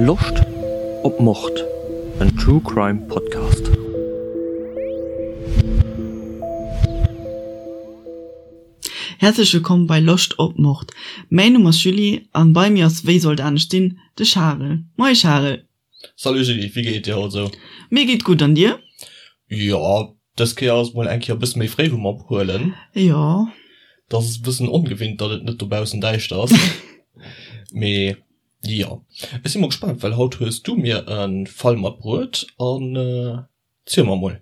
Loscht op Mord? En True Crime Podcast. Häerzlech wëllkomm bei Loscht op Mord. Mäin Numm ass Julie an bei mir ass, wéi sollt anescht sinn, de Charel. Moie Charel! Salut Julie, wéi geet et dir haut esou? Mir geet gutt, an dir? Jo, dës Kéier ass et mol eng Kéier e bësse méi fréi wou mer ophuelen. Jo. Dat ass e bëssen ongewinnt, datt et net dobaussen däischter ass. Mee jo, ech si mol gespaant, well haut hues du mir e Fall matbruet an ziel mer mol.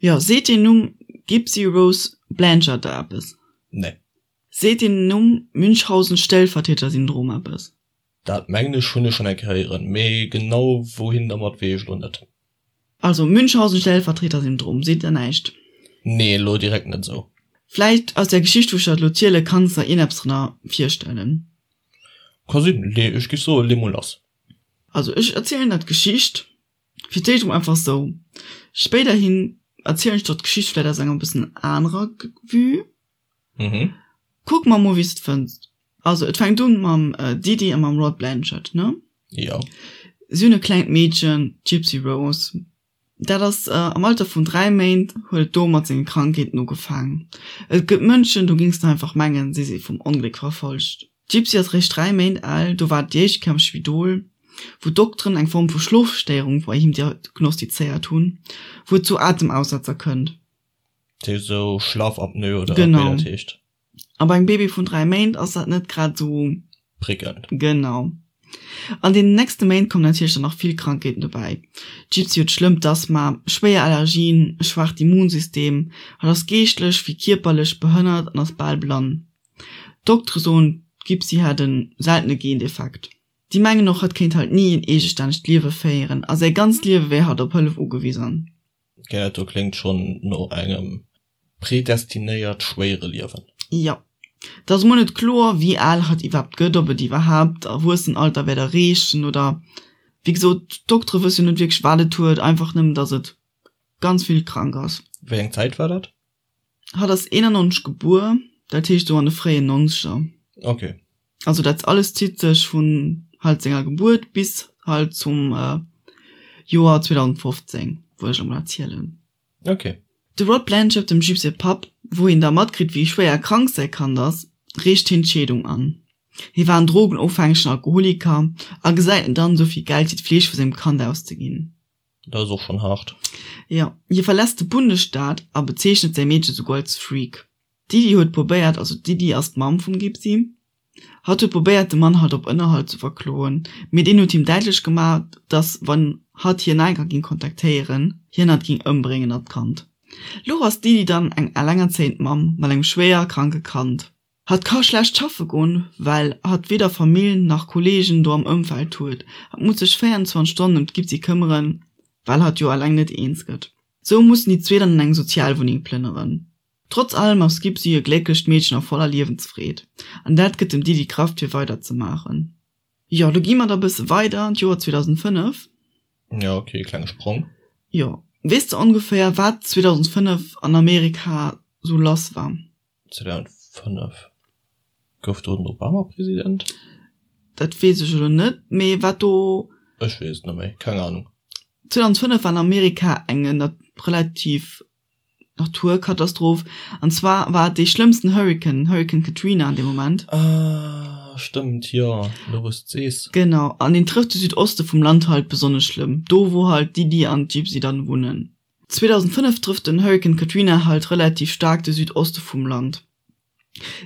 Jo, seet deen Numm Gypsy Rose Blanchard der eppes? Nee. Seet deen Numm Münchhausen-Stellvertreter-Syndrom eppes? Dat mengen ech hunn ech schonn eng Kéier héieren, mee genau wouhin dermat weess ech elo net. Also Münchhausen-Stellvertreter-Syndrom seet der näischt? Nee, elo direkt net esou. Vläicht aus der Geschicht wou ech der elo ziele kanns der ierneppes drënner virstellen. Ka sinn, lee ech giff soe lee mol lass. Also ech erzielen der d'Geschicht fir d'éischt emol einfach esou, spéiderhin erzielen ech der d'Geschicht vläicht aus enger e bëssen anerer Vue. Mhm. Kuck mer mol wéi s de et fënns. Also et fänkt un mam Didi a mam Rod Blanchard, ne? Jo. Si hunn e klengt Meedchen, d'Gypsy Rose. Dat ass am Alter vun 3 Méint huet et do mat senge Krankheeten ugefaangen. Et gëtt Mënschen, do géings de einfach mengen, si si vum Ongléck verfolgt. D'Gypsy ass réischt 3 Méint al, do war et déi éischt Kéier am Spidol, wou d'Dokteren eng Form vu Schlofstéierung bei him diagnostizéiert hunn, wou et zu Atemaussetzer kënnt. Dat heescht esou Schlafapnoe oder wéi dat heescht. A bei engem Baby vun 3 Méint ass dat net grad esou. Prickelnd. Genau. An deenen nächste Méint kommen natierlech dann nach vill Krankheeten dobäi. D'Gypsy huet schlëmmt Asthma, schwéier Allergien, e schwaacht Immunsystem, hatt ass geeschtlech wéi kierperlech behënnert an ass bal blann. D'Doktere soen, d'Gypsy hätt e seltene Gendefekt. Déi mengen och, hatt kéint halt ni en eegestännegt Liewe féieren a säi ganzt Liewe wär hatt op Hëllef ugewisen. Dat do kléngt schonn no engem predestinéiert schwéiere Liewen. Jo. Et ass emol net kloer, wéi al hatt iwwerhaapt gëtt, ob et iwwerhaapt d'Erwuessenalter wäert erreechen oder, wéi gesot, d'Doktere wësse jo net wierklech, wat et huet, einfach nëmmen, datt et ganz vill krank ass. Wéi eng Zäit war dat? Hatt ass 91 gebuer, dat heescht esou an de fréien Nonzeger. Ok. Also dat alles zitt sech vun halt senger Gebuert bis halt zum Joer 2015, wou ech emol erzielen. Ok. De Rod Blanchard, dem Jupe säi Papp, wou hien da matkritt wéi schwéier krank säi Kand ass, reecht hien d'Scheedung an. Hie war en drogenofhängegen Alkoholiker a gesäit net an, esou vill Geld fir d'Fleeg vu sengem Kand auszeginn. Dat ass och schonn haart. Jo, hie verlässt de Bundesstaat a bezeechnet säi Meedche souguer als Freak. D'Didi huet probéiert, also d'Didi ass d'Mamm vum Gipsy, hatt huet probéiert de Mann halt op Ënnerhalt ze verkloen, mee deen huet him däitlech gemaach, dass wann hatt hien nach eng Kéier ging kontaktéieren, hien hatt ging ëmbréngen an d'Kand. Lo ass d'Didi dann eng allengerzéiend Mamm mat engem schwéier kranke Kand. Hatt ka schlecht schaffe goen, well hatt weder Famill nach Kolleegen do am Ëmfeld huet. Hatt muss sech 24 Stonnen ëm d'Gipsy këmmeren, well hatt jo alleng net eens gëtt. Sou mussen déi zwee dann an eng Sozialwunneng plënneren. Trotz allem ass d'Gipsy e glécklecht Meedchen a voller Liewensfreed, an dat gëtt dem Didi Krafft fir weider ze maachen. Jo, lo gi mer da bësse weider an d'Joer 2005. Jo, ok, e klenge Sprong. Jo. Weess de ongeféier wat 2005 an Amerika sou lass war? 2005 gouf do den Obama President? Dat weess ech elo net, mee wat do. Ech weess et net méi, keng Ahnung. 2005 war an Amerika eng relativ Naturkatastroph, an zwar war et dee schlëmmsten Hurrikan, Hurrikan Katrina an deem Moment. Ah, stëmmt, jo, elo wou s de et sees. Genau, an deen trëfft de Südoste vum Land halt besonnesch schlëmm, do wou halt d'Didi an d'Gypsy dann wunnen. 2005 trëfft den Hurrikan Katrina halt relativ staark de Südoste vum Land.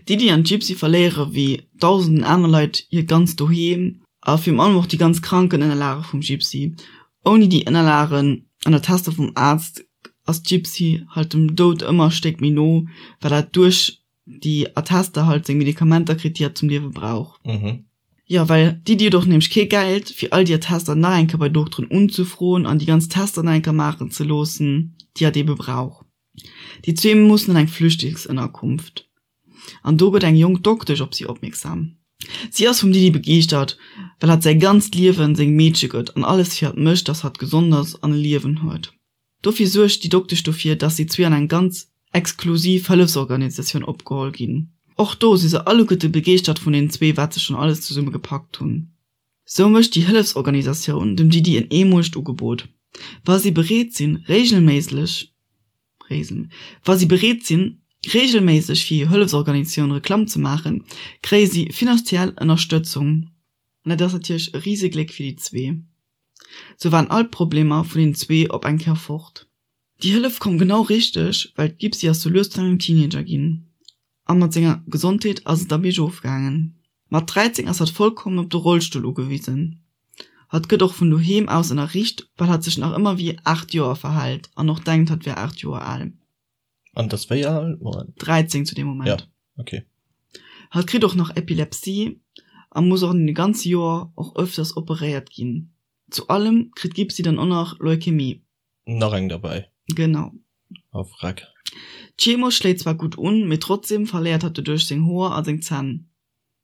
D'Didi an d'Gypsy verléiere wéi dausenden aner Leit hiert ganzt Doheem a virun allem och déi ganz Krankenënnerlage vum Gypsy. Ouni déi Ënnerlagen an Attester vum Aarzt ass d'Gypsy halt dem Doud ëmmer e Stéck méi no, well hat duerch déi Attester halt seng Medikamenter kritt, déi hat zum Liewe brauch. Jo, well d'Iddi huet och nämlech kee Geld, fir all déi Attester nach eng Kéier bei Dokteren unzefroen an déi ganz Tester nach eng Kéier maachen ze loossen, déi hatt eebe brauch. Déi zwee mussen an eng Flüchtlingsënnerkunft. An do gëtt eng jonk Doktesch op si opmierksam. Si ass vum Didi begeeschtert, well hatt säi ganzt Liewen sengem Meedche gëtt an alles fir hatt mécht, dass hatt gesond ass an e Liewen huet. Dofir suergt déi Doktesch dofir, dass si zwee an eng ganz exklusiv Hëllefsorganisatioun opgeholl ginn. Och do si se alleguerte begeeschtert vun den zwee, wat se schonn alles zesumme gepackt hunn. Sou mécht déi Hëllefsorganisatioun dem Didi en eemolegt Ugebot, Wa si bereet sinn, reegelméisseg wa si bereet sinn, reegelméisseg fir hir Hëllefsorganisatioun Reklamm ze maachen, kréie si finanziell Ënnerstëtzung. An dat ass natierlech e Risegléck fir déi zwee. Sou waren all d'Problemer vun den zwee op eng Kéier fort. Déi Hëllef koum genau richteg, well d'Gipsy ass sou lues zu engem Teenager ginn. A mat senger Gesondheet ass et da biergof gaangen. Mat 13 ass hatt vollkommen op de Rollstull ugewisen. Hatt gëtt och vun doheem aus ënnerriicht, well hatt sech nach ëmmer wéi 8 Joer verhält an och denkt, hatt wär 8 Joer al. An et ass wéi al? Moment. 13 zu deem Moment. Ja, okay. Hatt kritt och nach Epilepsie a muss och an deene ganze Joer och ëfters operéiert ginn. Zu allem kritt d'Gipsy dann och nach Leukämie. Nach eng derbäi. Genau. Oh vreck. D'Chemo schléit zwar gutt un, mee trotzdem verléiert hatt doduerch seng Hoer a seng Zänn.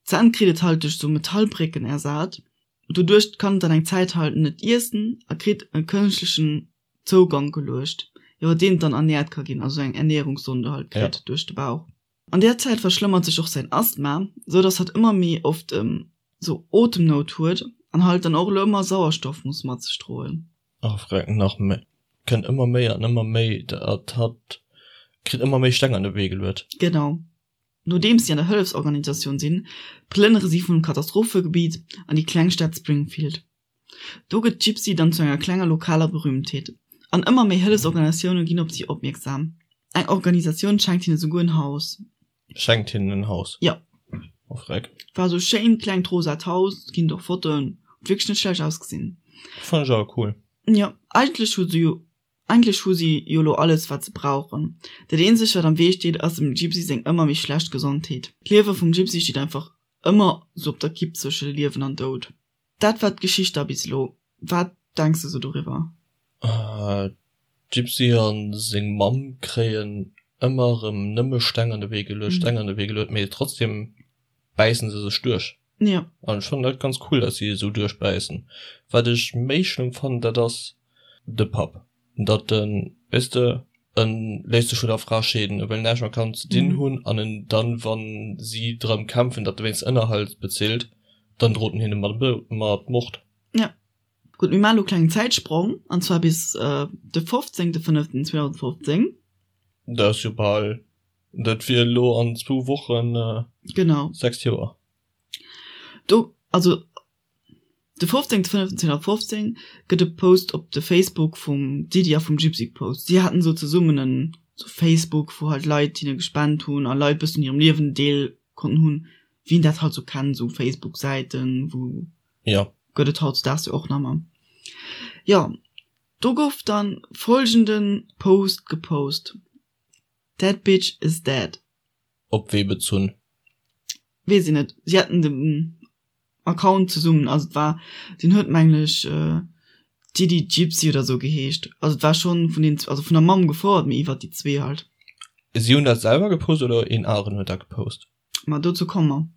D'Zänn kritt et halt duerch sou Metallbrécken ersat. Doduerch kann et dann eng Zäit halt net iessen a kritt e kënschtlechen Zougank geluecht, iwwer deen et dann ernährt ka ginn, also eng Ernährungssonde halt kritt ja. duerch de Bauch. An där Zäit verschlëmmert sech och säin Asthma, sou dass hatt ëmmer méi oft sou Otemnout huet an halt dann och elo ëmmer Sauerstoff muss mat sech droen. Ach vreck, nach méi, kënnt ëmmer méi an ëmmer méi, dat hatt kritt ëmmer méi Steng an de Wee geluet. Genau. Nodeems si an der Hëllefsorganisatioun sinn, plënnere si vum Katastrophegebiet an déi kleng Stad Springfield. Do gëtt d'Gypsy dann zu enger klenger lokaler Berühmtheet, an ëmmer méi Hëllefsorganisatioune ginn op si opmierksam. Eng Organisatioun schenkt hinne souguer en Haus. Schenkt hinnen en Haus? Jo. Oh freck. War sou schéint klengt rosat Haus, ginn et och Fotoen, huet wierklech net schlecht ausgesinn. Fannen ech awer cool. Jo, eigentlech hu se jo, eigentlech hu si jo lo alles wat se brauchen. Dat eenzegt wat am Wee steet ass dem Gypsy seng ëmmer méi schlecht Gesondheet. D'Liewe vum Gypsy steet einfach ëmmer sou op der Kipp zwësche Liewen an Doud. Dat war d'Geschicht da bis elo. Wat denks de sou doriwwer? D'Gypsy a seng Mamm kréien ëmmer erëm nëmme Steng an de Wee geluecht, Steng an de Wee geluecht, mee trotzdem bäissen se sech duerch. Jo. An ech fannen dat ganz cool, dass si esou duerchbäissen. Wat ech méi schlëmm fannen, dat ass de Papp. Datt en, weess de, en léisst sech vun der Fra scheeden, e wëll näischt mat Kanner ze dinn hunn an en dann, wann si drëm kämpfen, datt e wéinst Ënnerhalt bezilt, dann drot en hinne mat mat Mord. Jo. Gutt, mir maachen elo e klengen Zäitsprong, an zwar bis de 15.05.2015. Dat ass jo bal, dat wier elo an zwou Wochen Genau. 6 Joer. Do, also De 15.05.2015 gëtt e Post op de Facebook vum Didi a vum Gypsy gepost. Si haten esou zesummen en sou Facebook, wou halt Leit hinne gespent hunn a Leit bëssen un hirem Liewen Deel konnten hunn, wéi een dat halt sou kennt, sou Facebook-Säiten, wou Jo. gëtt et hautdesdaags jo och nach ëmmer. Jo, do gouf dann folgende Post gepost, That bitch is dead. Op wee bezunn? Weess een net. Si haten den Account zesummen, also et war, deen huet mengen ech Didi Gypsy oder sou geheescht, also et war schonn vun den, also vun der Mamm gefouert, mee iwwert déi zwee halt. Si hunn dat selwer gepost oder een aneren huet dat gepost? Ma dozou komme mer.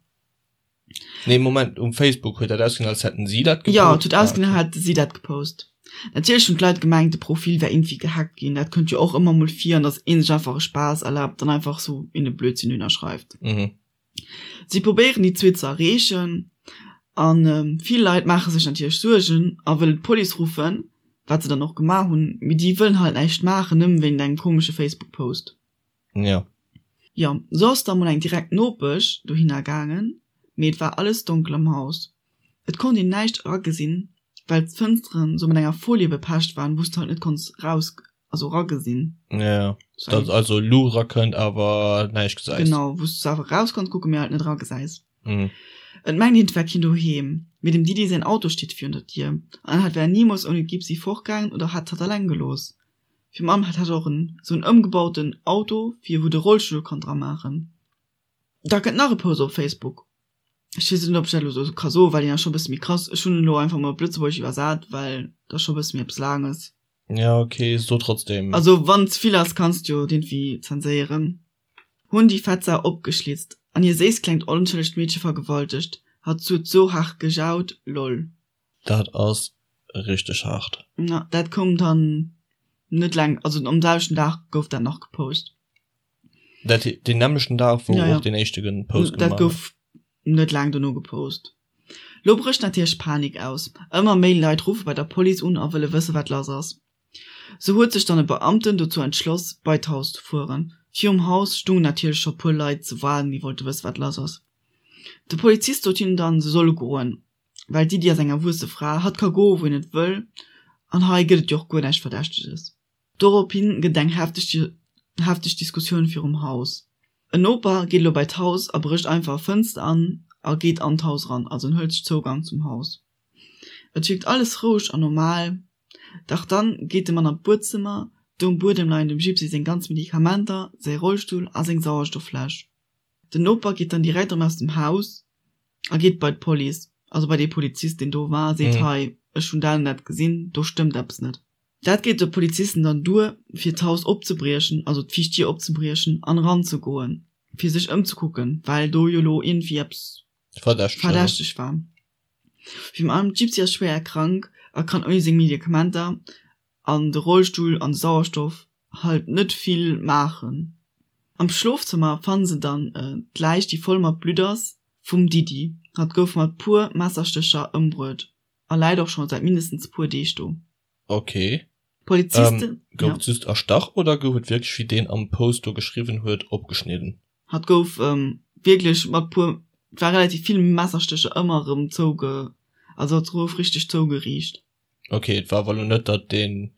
Nee Moment, um Facebook huet dat ausgesinn als hätten si dat gepost? Jo, et huet ausgesinn als hätte si dat gepost. Natierlech hunn d'Leit gemengt de Profil wär iergendwéi gehackt ginn, dat kënnt jo och ëmmer mol vir, an datt ee sech einfach e Spaass erlaabt an einfach sou een e Blödsinn dohinner schreift. Mhm. Si probéieren déi zwee ze erreechen a vill Leit maache sech natierlech Suergen a wëllen d'Police ruffen, wat se dann och gemaach hunn, mee déi wëllen halt näischt maachen, nëmmen wéint engem komesche Facebook-Post. Jo. Jo, sou ass da mol eng direkt Nopesch dohinner gaangen, mee et war alles donkel am Haus. Et konnt een näischt eragesinn, well d'Fënsteren sou mat enger Folie bepecht waren, wou s de halt net konns raus, also eragesinn. Ja, dass also Luucht erakënnt, awer näischt gesäis. Genau, wou s de awer raus kanns kucken, mee halt net eragesäis. Mhm. Et mengt een, et wär keen doheem, mee dem Didi säin Auto steet virun der Dier an hatt wär nimools ouni d'Gipsy fortgaangen oder hätt hatt alleng gelooss. Fir Mamm hat hatt och en sou en ëmgebauten Auto fir wou de Rollstull kann dra maachen. Da kënnt nach e Post op Facebook. Ech weess net ob ech dat elo sou ka soen, well deen ass scho bësse méi krass. Ech hunn en elo einfach mol op Lëtzebuergesch iwwersat, well dat ass scho bësse méi eppes Laanges. Ja ok, so trotzdem. Also wann ze vill ass kanns de jo et iergendwéi zenséieren. Hunn déi fett Sau opgeschlitzt an hir séisst klengt onschëllegt Meedche vergewaltegt. Hatt huet sou haart gejaut, lol. Dat ass richteg haart. Na, dat koum dann net laang, also am selwechten Dag gouf dat nach gepost. Dat deen nämmlechten Dag, wou och deen éischte Post gemaach. Dat gouf net laang dono gepost. Lo brécht natierlech Panik aus. Ëmmer méi Leit ruffe bei der Police un a wëlle wësse wat lass ass. Sou huet sech dann e Beamten dozou entschloss bei d'Haus ze fueren. Virum Haus stungen natierlech scho puer Leit ze waarden déi wollte wësse wat lass ass. De Polizist sot hinnen dann se solle goen, well d'Iddi ass eng erwuesse Fra, hatt ka goe wou een et wëll an hei gëtt et jo och guer näischt Verdächteges. Dorophin gëtt et eng hefteg Diskussioun virum Haus. En Noper geet elo bei d'Haus a brécht einfach e Fënster an a geet an d'Haus eran, also en hëlt sech Zougang zum Haus. Et wierkt alles roueg an normal, dach dann geet de Mann an d'Buedzëmmer, do um Buedem leien dem Gypsy seng ganz Medikamenter, säi Rollstull a seng Sauerstofffläsch. Den Noper geet dann direkt erëm aus dem Haus a geet bei d'Police, also bei dee Polizist deen do war, a seet, Hei, ech hunn dat an dat gesinn, do stëmmt eppes net. Dat geet de Polizisten dann duer, fir d'Haus opzebriechen, also d'viischt Dier opzebriechen an eranzegoen, fir sech ëmzekucken, well do jo lo iergendwéi eppes Verdächteg war. Virun allem d'Gypsy ass schwéier krank a kann ouni seng Medikamenter an de Rollstull an de Sauerstoff halt net vill maachen. Am Schlofzëmmer fanne se dann d'Läich, déi voll mat Blutt ass, vum Didi. Hatt gouf mat puer Messerstécher ëmbruet. A läit och scho säit mindestens puer Deeg do. Ok. D'Polizisten, Ähm, gouf ja. et just erstach oder gouf et wierklech, wéi deen am Post do geschriwwen huet, opgeschnidden? Hatt gouf wierklech mat puer, et war relativ vill Messerstécher ëmmer erëm zouge, also hatt gouf richteg zougeriicht. Ok, et war awer elo net, datt deen,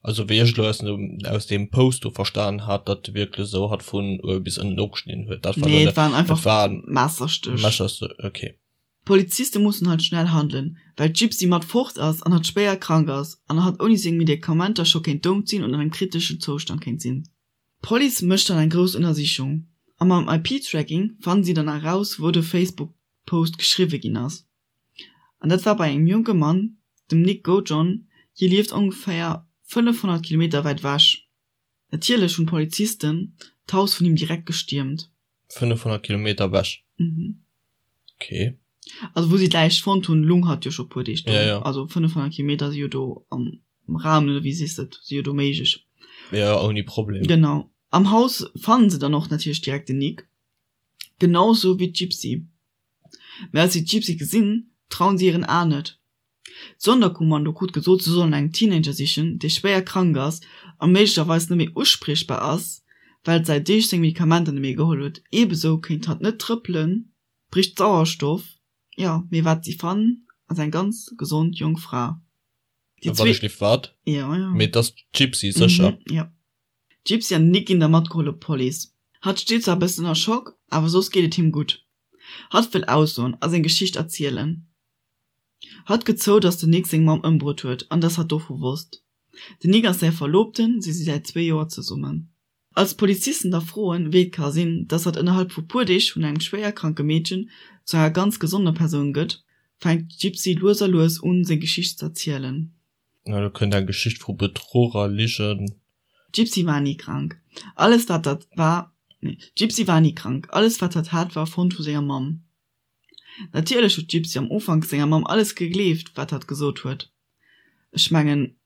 also wéi ech elo aus dem, aus deem Post do verstan hat, datt e wierklech esou hatt vun uewe bis ënnen opgeschnidden huet. Dat war elo Nee, et net, waren et einfach waren Messerstéch. Messerstéch, ok. D'Poliziste mussen halt schnell handelen, well d'Gypsy mat fort ass an hatt schwéier krank ass an hatt ouni seng Medikamenter scho kéint dout sinn oder an engem kriteschen Zoustand kéint sinn. D'Police mécht dann eng grouss Ënnersichung a mam IP-Tracking fannen si dann eraus wou de Facebook-Post geschriwwe ginn ass. An dat war bei engem jonke Mann, dem Nick Gojon, hie lieft ongeféier 500 Kilometer wäit ewech. Natierlech hunn d'Polizisten d'Haus vun him direkt gestiermt. 500 Kilometer ewech? Mhm. Okay. Also wou si d'Läich fonnt hunn, lung hatt jo scho puer Deeg do. Ja, ja. Also 500 Kilometer si jo do am Raum, oder wéi sees de et, si jo do méiglech. Ja, ouni Problem. Genau. Am Haus fannen se dann och natierlech direkt den Nick, genau sou wéi d'Gypsy. Mä als si d'Gypsy gesinn, trauen si hiren Aen net. D'Sonderkommando krut gesot, se sollen engem Teenager sichen, dee schwéier krank ass a méiglecherweis net méi uspriechbar ass, well et säit Deeg seng Medikamenter net méi geholl huet. Eebesou kéint hatt net trëppelen, bréicht Sauerstoff. Jo, mee wat si fannen, ass eng ganz gesond jonk Fra. Déi zwee. Wat wat? Jo, jo. Mee et ass d'Gypsy, sécher? Mhm, jo. D'Gypsy an den Nick ginn da matgeholl op d'Police. Hatt steet zwar e bëssen ënner Schock, awer soss geet et him gutt. Hatt wëll aussoen a seng Geschicht erzielen. Hatt gëtt zou, dass den Nick seng Mamm ëmbruet huet an dass hatt dovu wosst. Den Nick ass säi Verloobten, si si säit zwee Joer zesummen. Als d'Polizisten da froen, wéi et ka sinn, dass hatt ënnerhalb vu puer Deeg vun engem schwéier kranke Meedchen zu enger ganz gesonder Persoun gëtt, fänkt d'Gypsy lues a lues un, seng Geschicht z'erzielen. Na, do kënnt eng Geschicht vu Bedruch a Ligen. D'Gypsy war ni krank. Alles wat hatt war, nee, d'Gypsy war ni krank. Alles wat hatt hat, war erfonnt vu senger Mamm. Natierlech huet d'Gypsy am Ufank senger Mamm alles gegleeft, wat hatt gesot huet. Ech mengen,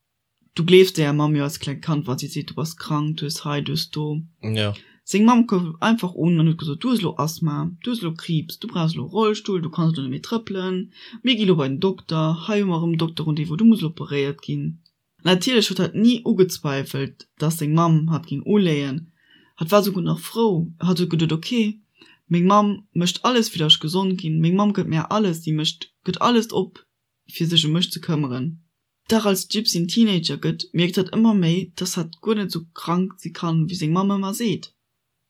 du gleefs denger Mamm jo als klengt Kand, wa si seet, du bass krank, du hues hei, du hues do. Jo. Seng Mamm koum einfach un an huet gesot, du hues elo Asthma, du hues elo Kriibs, du brauchs elo e Rollstull, du kanns elo net méi trëppelen, mir gi lo bei den Dokter, hei hu mer erëm en Dokterrendez-vous, du muss elo operéiert ginn. Natierlech huet hatt ni ugezweifelt, dass seng Mamm hatt géing uléien. Hatt war souguer nach frou. Hatt huet geduet, Ok, meng Mamm mécht alles, fir dass ech gesond ginn. Meng Mamm gëtt mär alles, si mécht, gëtt alles op, fir sech ëm mech ze këmmeren. Dach als d'Gypsy en Teenager gëtt, mierkt hatt ëmmer méi, dass hatt guer net esou krank si kann, wéi seng Mamm ëmmer seet.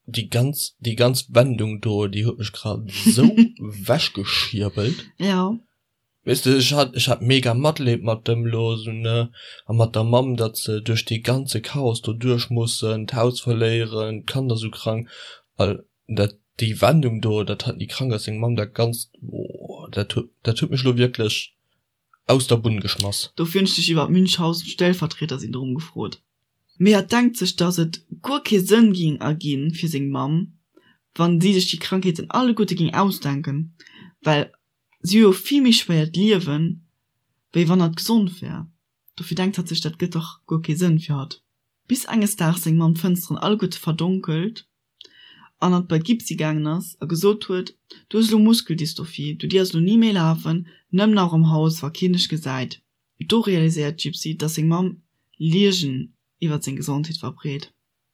Déi ganz, déi ganz Wendung do, déi huet mech grad esou wechgeschierbelt. Jo. Weess de, ech hat, ech hat mega Matleed mat dem lo esou, ne, a mat der Mamm, datt se duerch dee ganze Chaos do duerch mussen, d'Haus verléieren, d'Kanner sou krank, a dat, déi Wendung do, datt hatt ni krank ass, seng Mamm, dat Ganzt, oh, dat huet, dat huet mech lo wierklech aus der Bunn geschmass. Dofir hunn ech dech iwwer Münchhausen-Stellvertreter-Syndrom gefrot. Mee hatt denkt sech, datt et guer kee Sënn ging erginn fir seng Mamm, wann si sech déi Krankheeten alleguerte ging ausdenken, well Si hu jo vill méi schwéiert Liewen, wéi wann hatt gesond wär. Dofir denkt hatt sech, dat gëtt dach guer kee Sënn fir hatt. Bis enges Daags seng Mamm d'Fënsteren alleguerte verdonkelt. An hatt bei d'Gipsy gaangen ass a gesot huet, Du hues elo Muskeldystrophie, du dierfs elo ni méi lafen, nëmmen nach am Haus, wa keen dech gesäit. Do realiséiert d'Gypsy, dass seng Mamm Ligen iwwer seng Gesondheet verbreet.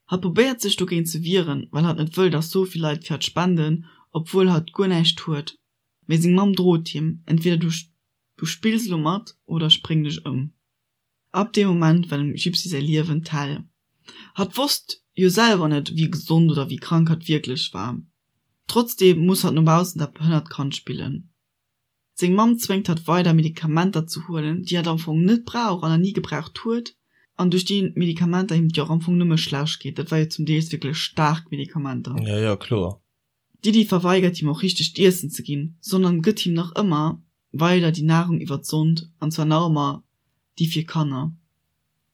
Hatt probéiert sech dogéint ze wieren, well hatt net wëll, dass sou vill Leit fir hatt spenden, obwuel hatt guer näischt huet. Mee seng Mamm drot him, Entweder du du spills elo mat oder ech bréngen dech ëm. Ab deem Moment war dem Gypsy säi Liewen d'Hell. Hatt wosst jo selwer net, wéi gesond oder wéi krank hatt wierklech war. Trotzdeem muss hatt no baussen dat behënnert Kand spillen. Seng Mamm zwéngt hatt weider Medikamenter ze huelen, déi hatt am Fong net brauch an ni gebraucht huet, an duerch déi Medikamenter him et jo och am Fong nëmme schlecht geet. Dat war jo zum Deels wierklech staark Medikamenter. Jo, jo, kloer. D'Diddy verweigert him och richtegt Iessen ze ginn, sondern gëtt him nach ëmmer weider déi Nahrung iwwer d'Sond, an zwar nach ëmmer déi fir Kanner.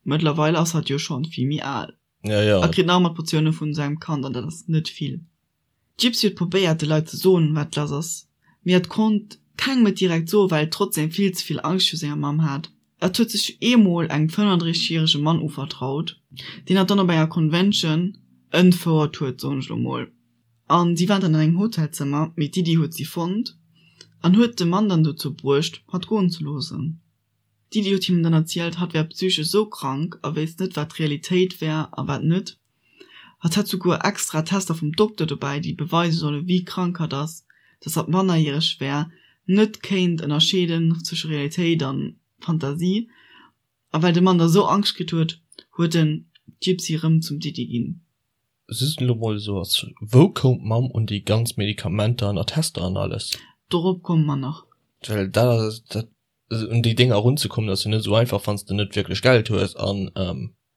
Mëttlerweil ass hatt jo schonn vill méi al Ja, ja. a kritt nach ëmmer d'Portioune vun sengem Kand, an dat ass net vill. D'Gypsy huet probéiert de Leit ze soen wat lass ass, mee hatt konnt kengem et direkt soen, well et trotzdeem vill ze vill Angscht viru senger Mamm hat. Hatt huet sech eemol engem 35 järege Mann uvertraut, deen hatt dann op enger Convention entfouert huet, soen ech lo mol. An si waren dann an engem Hotelzëmmer, mee d'Didi huet si fonnt an huet de Mann dann dozou bruecht, hatt goen ze loossen. D'Didi huet him dann erzielt, hatt wär psychesch esou krank a wéisst net, wat Realitéit wär a wat net. Hatt hätt souguer extra Tester vum Dokter dobäi, déi beweise solle wéi krank hatt ass, dass hatt mannerjäreg wär, net kéint ënnerscheeden zwësche Realitéit a Fantasie. A well de Mann da sou Angscht kritt huet, huet en d'Gypsy rëm zum Didi ginn. Just elo mol esou als, wou koum d'Mamm un déi ganz Medikamenter an Attester an alles? Dorop komme mer nach. Well dat ass, dat, un déi Dénger erunzekommen ass jo net esou einfach, wann s de net wierklech Geld hues an,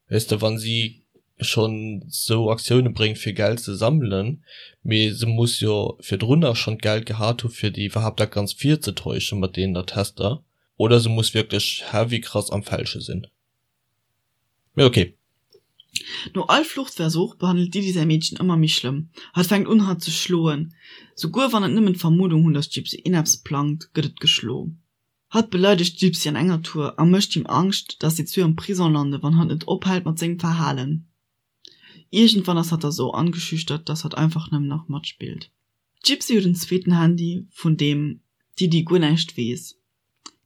weess de, wann si schonn esou Aktioune bréngt fir Geld ze sammelen, mee se muss jo virdrunner schonn d'Geld gehat hu fir déi iwwerhaapt dat Ganzt virzetäuschen mat deenen Attester, oder se muss wierklech heavy krass am Fälsche sinn. Mee ok. No all Fluchtversuch behandelt d'Didi säi Meedchen ëmmer méi schlëmm. Hatt fänkt un hatt ze schloen. Souguer wann et nëmmen d'Vermuddung hunn, datt d'Gypsy ieneppes plangt, gëtt et geschlo. Hatt beleidegt d'Gypsy an enger Tour a mécht him Angscht, datt si zwee am Prison lande wann hatt net ophält mat sengem Verhalen. Iergendwann ass hatt da sou angeschüchtert, datt hatt einfach nëmmen nach matspillt. D'Gypsy huet en zweeten Handy, vun deem d'Didi guer näischt weess.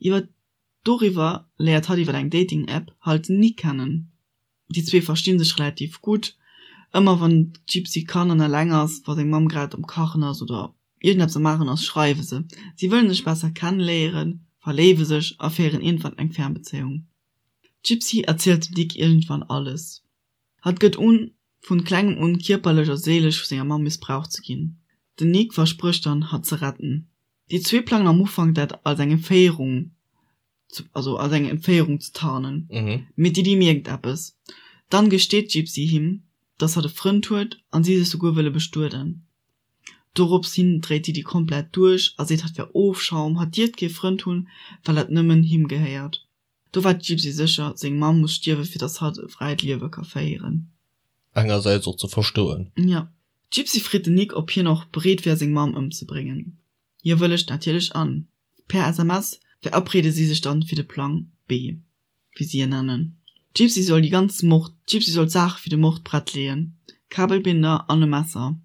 Iwwer Doriwwer léiert hatt iwwer eng Dating-App halt den Nick kennen. Déi zwee verstinn sech relativ gutt. Ëmmer wann d'Gypsy kann an eleng ass, wa seng Mamm grad am Kachen ass oder iergendeppes am Maachen ass, schreiwe se. Si wëllen sech besser kenneléieren, verléiwe sech a féieren iergendwann eng Fernbezéiung. D'Gypsy erzielt dem Nick iergendwann alles. Hatt gëtt un, vun klengem un kierperlech a séilesch vu senger Mamm missbraucht ze ginn. Den Nick versprécht dann, hatt ze retten. Déi zwee plangen am Ufank dat als eng Entféierung, also als eng Entféierung ze tarnen, mee d'Didi mierkt eppes. Dann gesteet d'Gypsy him, dass hatt e Frënd huet an si sech souguer wëlle bestueden. Dorops hin dréit d'Didi komplett duerch a seet hatt wär Ofschaum, hatt dierft kee Frënd hunn, well hatt nëmmen him gehéiert. Do war d'Gypsy sécher, seng Mamm muss stierwe fir dass hatt e fräit Liewe ka féieren. Engersäits och ze verstoen. Jo. D'Gypsy freet den Nick ob hien och bereet wär seng Mamm ëmzebréngen. Hie wëllegt natierlech an. Per SMS verabreede si sech dann fir de Plang B, wéi si en nennen. D'Gypsy soll déi ganz Mord, d'Gypsy soll d'Saache fir de Mord prett leeën, Kabelbinder an e Messer.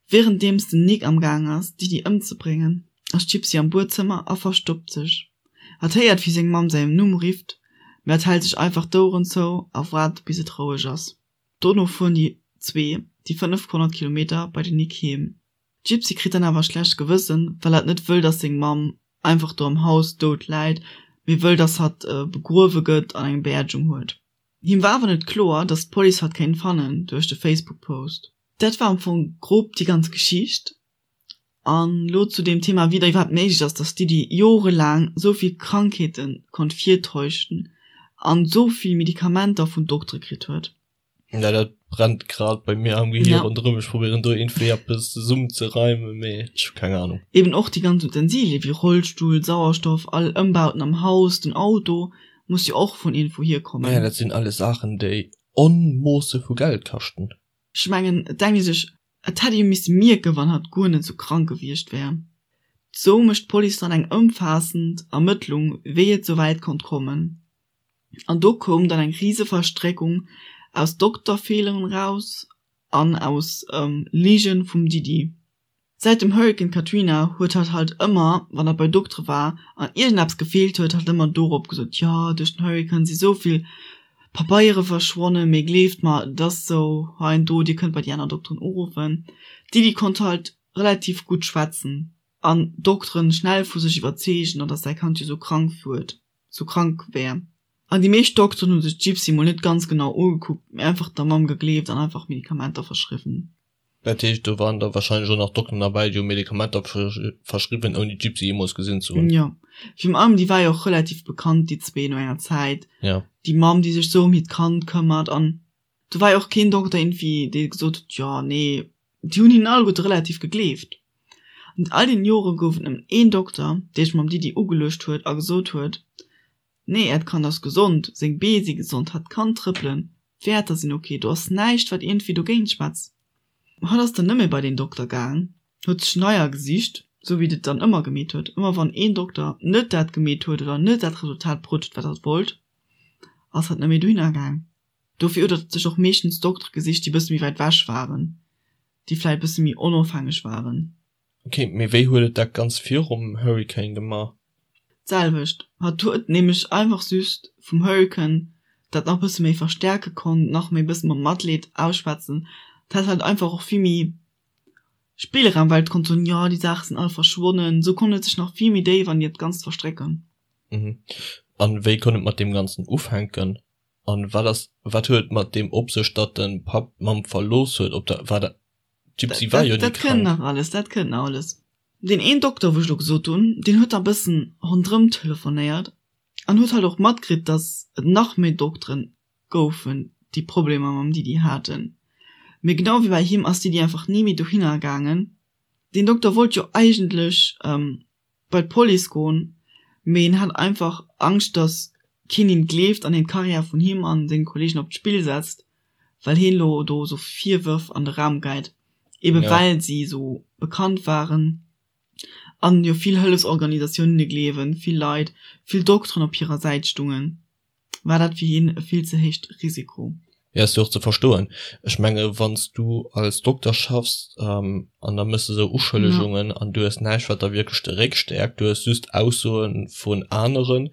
Wärenddeems den Nick am Gaang ass, d'Didi ëmzebréngen, ass d'Gypsy am Buedzëmmer a verstoppt sech. Hatt héiert, wéi seng Mamm säin Numm rifft, mee hatt hält sech einfach d'Oueren zou a waart, bis et roueg ass. Dono fueren déi zwee déi 500 Kilometer bei den Nick heem. D'Gypsy kritt dann awer e schlecht Gewëssen, well hatt net wëll, dass seng Mamm einfach do am Haus dout läit, mee wëll, dass hatt begruewe gëtt an eng Beerdegung huet. Him war awer net kloer, dass d'Police hatt kéint fannen duerch de Facebook-Post. Dat war am Fong grob déi ganz Geschicht. An elo zu deem Thema, wéi et iwwerhaapt méiglech ass, dass d'Diddy jorelaang esou vill Krankheete konnt virtäuschen an esou vill Medikamenter vun Doktere kritt huet. Ja, dat brennt grad bei mir am Gehir ronderëm. Ech probéieren do iergendwéi eppes zesummenzereimen, mee ech hu keng Ahnung. Eben och déi ganz Utensilien, wéi Rollstull, Sauerstoff, all Ëmbauten am Haus, den Auto, muss jo och vun iergendwou hierkommen. Ja, dat sinn alles Saachen, déi Onmoosse vu Geld kaschten. Ech mengen, et denkt ee sech, et hätt ee jo misse mierken, wann hatt guer net sou krank gewiescht wär. Sou mécht d'Police dann eng ëmfaassend Ermëttlung, wéi et sou wäit konnt kommen. An do koum dann eng rise Verstréckung aus Dokterfeeleren raus. an aus Ligen vum Didi. Säit dem Hurrikan Katrina huet hatt halt ëmmer, wann hatt bei Doktere war an iergendeppes gefeelt huet, hatt ëmmer dorop gesot, jo duerch den Hurrikan si sou vill Pabeiere verschwonnen, mee gleeft mer, et ass sou, hei an do, dir kënnt bei déi aner Dokteren uruffen. D'Didi konnt halt relativ gutt schwätzen an d'Dokteren schnell vu sech iwwerzeegen, an dass säi Kand jo sou krank huet, sou krank wär. An déi meescht Dokteren hu sech d'Gypsy mol net ganz genau ugekuckt, mee einfach der Mamm gegleeft an einfach Medikamenter verschriwwen. Dat heescht, do waren da wahrscheinlech och nach Dokteren derbäi, déi hu Medikamenter verschriwwen, ouni d'Gypsy jeemools gesinn ze hunn. Jo, virun allem déi war jo och relativ bekannt, déi zwee, no enger Zäit. Jo. Déi Mamm, déi sech sou ëm hiert Kand këmmert. An do war jo och keen Dokter iergendwéi, dee gesot huet, jo, nee, déi hunn hinnen alleguerte relativ gegleeft. An all deenen Jore gouf et nëmmen een Dokter, dee sech mam Didi ugeluecht huet a gesot huet, Nee, äert Kand ass gesond, seng Bee si gesond, hatt kann trëppelen, d'Wäerter sinn ok, do ass näischt, wat iergendwéi dogéint schwätzt. Hatt ass dann net méi bei deen Dokter gaang, huet sech neier gesicht, sou wéi et dann ëmmer gemeet huet. Ëmmer wann een Dokter net dat gemeet huet oder net dat Resultat bruet huet, wat hatt wollt, ass hatt net méi dohinner gaang. Dofir huet hatt sech och meeschtens Doktere gesicht, déi e bësse méi wäit wech waren, déi vläicht e bësse méi onofhängeg waren. Ok, mee wéi huet et dat ganz virum Hurricane gemaach? D'selwecht. Hatt huet nämlech einfach just vum Hurricane dat nach bësse méi verstäerke konnt, nach méi bësse mam Matleed ausschwätzen. Et hat halt einfach och vill méi Spillraum, well et konnt soen, jo déi Saache sinn all verschwonnen. Esou konnt et sech nach vill méi déif an hiert Ganzt verstrécken. Mhm. An wéi konnt et mat deem Ganzen ufänken? An wat ass, wat huet et mat deem op sech, datt de Papp d'Mamm verlooss huet? Op der, war dat, D'Gypsy war jo ni Dat kënnt krank. nach alles, dat kënnt nach alles. Deen een Dokter, wou ech elo gesot hunn, deen huet da bëssen ronderëm telefonéiert an huet halt och matkritt, datt et nach méi Dokteren goufen, déi Problemer mam Didi haten. Mee genau wéi bei him ass d'Didi einfach ni méi dohinner gaangen. Deen Dokter wollt jo eigentlech bei d'Police goen, mee en hat einfach Angscht, datt keen him gleeft an hien d'Karriär vun him an senge Kollegen op d'Spill setzt, well hien elo do esou Virwërf an de Raum geit, ebe Ja. well si esou bekannt waren an jo vill Hëllefsorganisatiounen hinne gleewen, vill Leit, vill Dokteren op hirer Säit stungen. War dat fir hien e vill ze héicht Risiko. Jo, ass jo och ze verstoen. Ech menge wann s du als Dokter schaffs an da méchs de esou Uschëllegungen an du hues näischt wat der wierklech de Réck stäerkt, du hues just Aussoe vun aneren,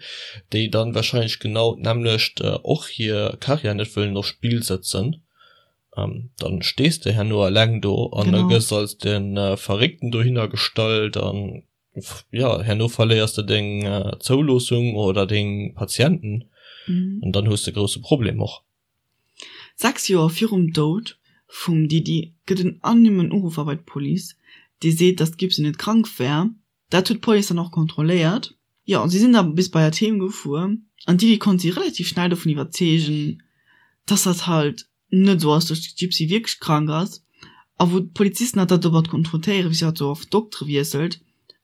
déi dann wahrscheinlech genau d'nämmlecht och hir Karriär net wëllen op Spill sëtzen, dann stees de herno eleng do an da gëss als de Verréckten dohinner gestallt an jo, herno verléiers de deng Zouloossung oder deng Patienten an dann hues de grousse Problem och. 6 Joer virum Doud vum Didi gëtt en anonymen Uruffer bei d'Police, dee seet, datt d'Gibson net krank wär. Dat huet d'Police dann och kontrolléiert. Jo, si sinn da bis bei hatt heem gefuer an d'Didi konnt si relativ schnell dovun iwwerzeegen, datt hatt halt net esou ass, datt d'Gypsy wierklech krank ass a wou d'Polizisten hatt da domat konfrontéieren, wéi si hatt esou oft Doktere wiesselt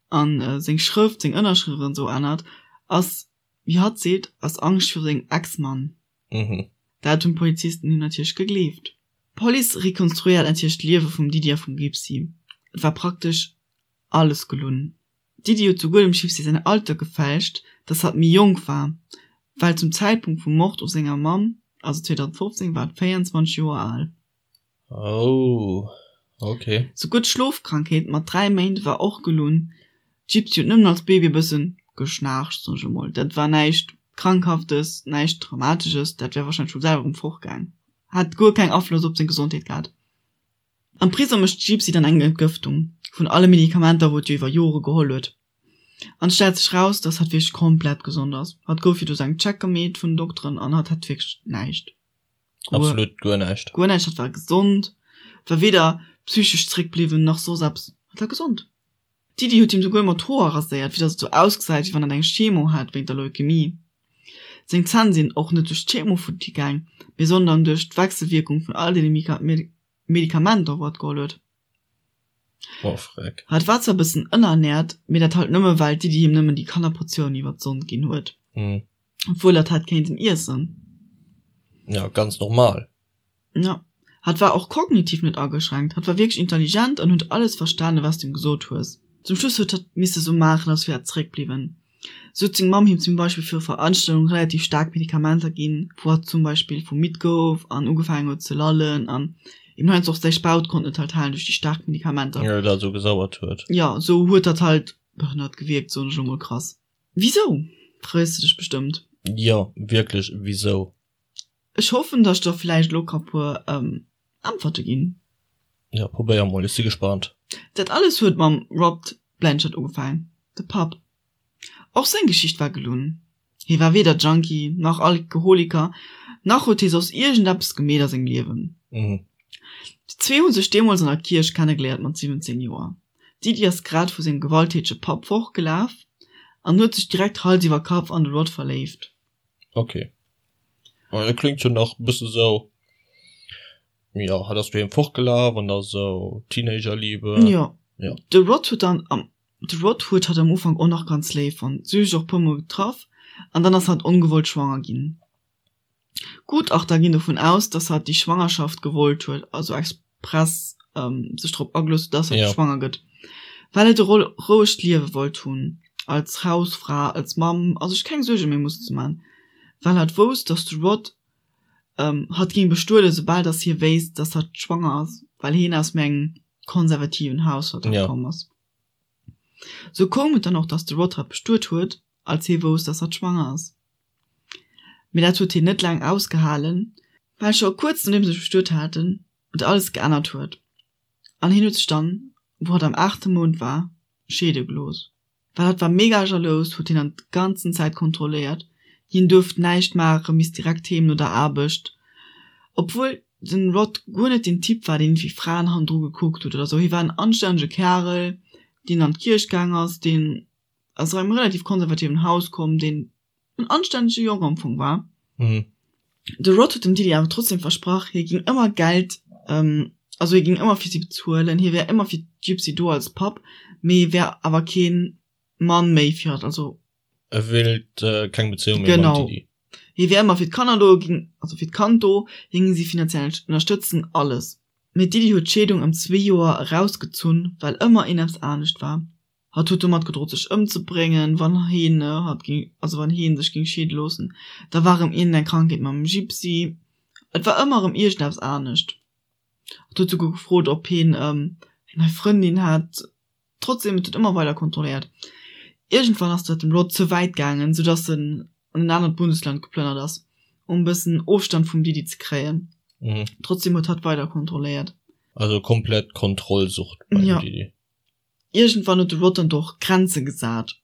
an seng Schrëft, seng Ënnerschrëft an esou ännert, ass, wéi hatt seet, aus Angscht viru sengem Ex-Mann. Dat hunn d'Polizisten him natierlech gegleeft. D'Police rekonstruéiert natierlech d'Liewe vum Didi a vum Gypsy. Et war praktesch alles gelunn. D'Didi huet souguer dem Gypsy säin Alter gefälscht, dass hatt méi jonk war, well zum Zäitpunkt vum Mord u senger Mamm, also 2015, war hatt 24 Joer al. Oh, ok. Souguer d'Schlofkrankheet mat 3 Méint war och gelunn. D'Gypsy huet nëmmen als Baby e bëssen geschnaarcht, soen ech emol. Dat war näischt Krankhaftes, näischt Dramatesches, dat wär warscheinlech vum selwer erëm fortgaang. Hat guer keng Afloss op seng Gesondheet gehat. Am Prisong mécht d'Gypsy dann eng Entgëftung vun alle Medikamenter, wou et jo iwwer Jore geholl huet. An et stellt sech raus, dass hatt wierklech komplett gesond ass. Hatt gouf jo do sou eng Check gemeet vun den Dokteren an hatt hat wierklech näischt. Guer, Absolut guer näischt. Guer näischt. Hatt war gesond, war weder psychesch zréckbliwwen nach soss eppes. Hatt war gesond. D'Didi huet him souguer ëmmer d'Hoer raséiert, fir dass et sou ausgesäit, wéi wann hatt eng Chemo hätt wéint der Leukemie. Seng Zänn sinn och net duerch d'Chemo futti gaang, mee sondern duerch d'Wechselwierkung vun all deene Medikamenter, wou hatt geholl huet. Oh freck. Hatt war zwar e bëssen ënnerernährt, mee dat halt nëmme well d'Didi him nëmmen déi Kannerportioun iwwer d'Sond ginn huet, obwuel hatt hätt kéinten iessen. Ja, ganz normal. Jo, hatt war och kognitiv net ageschränkt, hatt war wierklech intelligent an huet alles verstanen, wat s du him gesot hues. Zum Schluss huet hatt misse sou maachen, als wier hatt zeréckbliwwen. Sou huet seng Mamm him zum Beispill fir Veranstaltungen relativ staark Medikamenter ginn, wou hatt zum Beispill vu midd gouf an ugefaangen huet ze lallen an. Eben heiansdo och säi Spaut konnt net halt halen duerch déi staark Medikamenter. Jo, dat esou gesauert huet. Jo, esou huet dat halt behënnert gewierkt, soen ech elo mol krass. Wisou? Frees de dech bestëmmt. Jo, wierklech, wisou? Ech hoffen, dass ech der vläicht elo ka puer Äntwerte ginn. Jo, probéier mol, ech si gespaant. Dat alles huet mam Rod Blanchard ugefaang, de Papp. Och seng Geschicht war gelunn. Hie war weder Junkie, nach Alkoholiker, nach huet hie soss iergendeppes gemeet a sengem Liewen. Déi zwee hu sech deemools an der Kierch kennegeléiert mat 17 Joer. D'Didi ass grad vu sengem gewalttätege Papp fortgelaf an huet sech direkt Hals iwwer Kapp an de Rod verléift. Ok. Dat kléngt jo nach e bësse sou, jo, hatt ass doheem fortgelaf an da sou Teenagerliebe. Jo. Jo. De Rod huet dann am De Rod huet hatt am Ufank och nach ganz léif fonnt, si hu sech och puer mol getraff an dann ass hatt ongewollt schwanger ginn. Gutachter ginn dovun aus, dass hatt déi Schwangerschaft gewollt huet, also express sech drop agelooss huet, dass hatt schwanger gëtt, well hatt e rouegt Liewe wollt hunn, als Hausfra, als Mamm a sech keng Suerge méi mussen ze man, well hatt wousst, dass de Rod hatt géing bestueden, soubal dass hie wéisst, dass hatt schwanger ass, well hien aus méi engem konservativen Haushalt komm ass. Sou koum et dann och, dass de Rod hatt bestuet huet, als hie wousst, dass hatt schwanger ass. Mee dat huet hien net laang ausgehalen, well scho kuerz nodeem se sech bestuet haten, et alles geännert huet an hien huet sech dann, wou hatt am aachte Mount war, scheede gelooss. Well hatt war mega jalous, huet hien an d'ganzen Zäit kontrolléiert, hien duerft näischt maachen, misst direkt heem no der Aarbecht, obwuel den Rod guer net den Typ war, deen iergendwéi Fraen hannendru gekuckt huet oder sou. Hie war en anstännege Kärel, deen an d'Kierch gaang ass, deen aus engem relativ konservativen Haus komm, deen en anstännege Jong am Fong war. De Rod huet dem Diddy awer trotzdem versprach, hie géing ëmmer Geld, also hie géing ëmmer fir si bezuelen, hie wär ëmmer fir d'Gypsy do als Papp, mee hie wär awer kee Mann méi fir hatt, also. E wéilt keng Bezéiung méi mam Diddy. Genau. Hie wär ëmmer fir d'Kanner do, géing, also fir d'Kand do, hie géing si finanziell ënnerstëtzen, alles. Mee d'Diddy huet d'Scheedung ëm zwee Joer erausgezunn, well ëmmer een eppes anescht war. Hatt huet domat gedrot sech ëmzebréngen, wann hien hatt ging, also wann hien sech ging scheede loossen. Da war erëm iergendeng Krankheet mam Gypsy. Et war ëmmer erëm iergendeppes anescht. Hatt huet souguer gefrot, ob hien eng nei Frëndin hätt. Trotzdem, et huet ëmmer weider kontrolléiert. Iergendwann ass dat dem Rod ze wäit gaangen, soudass en an en anert Bundesland geplënnert ass, um e bëssen Ofstand vum Diddy ze kréien. Trotzdem huet hatt weider kontrolléiert. Also komplett Kontrollsucht beim Diddy. Iergendwann huet de Rod dann och Grenze gesat.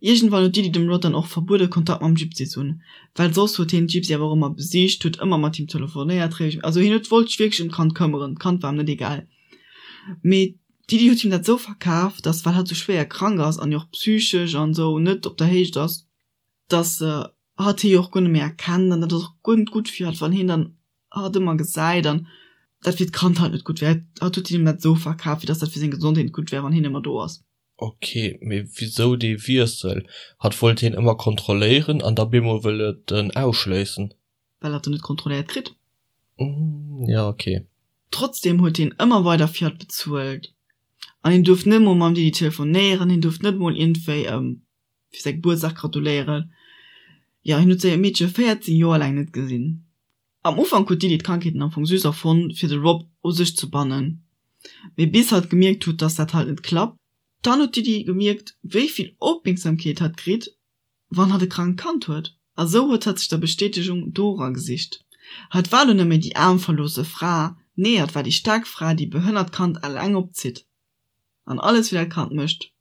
Iergendwann huet d'Diddy dem Rod dann och verbuede Kontakt mam Gypsy ze hunn, well soss huet hien d'Gypsy awer och ëmmer besicht, huet ëmmer mat him telefonéiert, also hien huet wollt sech wierklech ëm d'Kand këmmeren, d'Kand war em net egal. Mee d'Diddy huet him dat sou verkaf, dass well hatt sou schwéier krank ass an jo och psychesch an sou net op der Héicht ass, dass hatt hie jo och guer net méi erkennt an dat ass och guer net gutt fir hatt, wann hien dann hatt ëmmer gesäit an dat fir d'Kand halt net gutt wär. Hatt huet him dat esou verkaf, wéi dass dat fir seng Gesondheet net gutt wär, wann hien ëmmer do ass. Ok, mee wisou dee Wiessel? Hatt wollt hien ëmmer kontrolléieren an da bemol wëll et en ausschléissen. Well hatt en net kontrolléiert kritt. Jo, ok. Trotzdem huet hien ëmmer weider fir hatt bezuelt an hien duerft net mol mam Didi telefonéieren, hien duerft net mol iergendwéi fir säi Gebuertsdag gratuléieren. Jo, hien huet säi Meedche 14 Joer laang net gesinn. Am Ufank huet d'Didi d'Krankheeten am Fong just erfonnt, fir de Rob u sech ze bannen. Mee bis hatt gemierkt huet, dass dat halt net klappt. Dann huet d'Didi gemierkt, wéi vill Opmierksamkeet hatt kritt, wann hatt e krankt Kand huet. A sou huet hatt sech der Bestätegung dora gesicht. Hatt war lo net méi déi aarm verloosse Fra, nee, hatt war déi staark Fra, déi e behënnert Kand eleng opzitt an alles fir dat Kand mécht.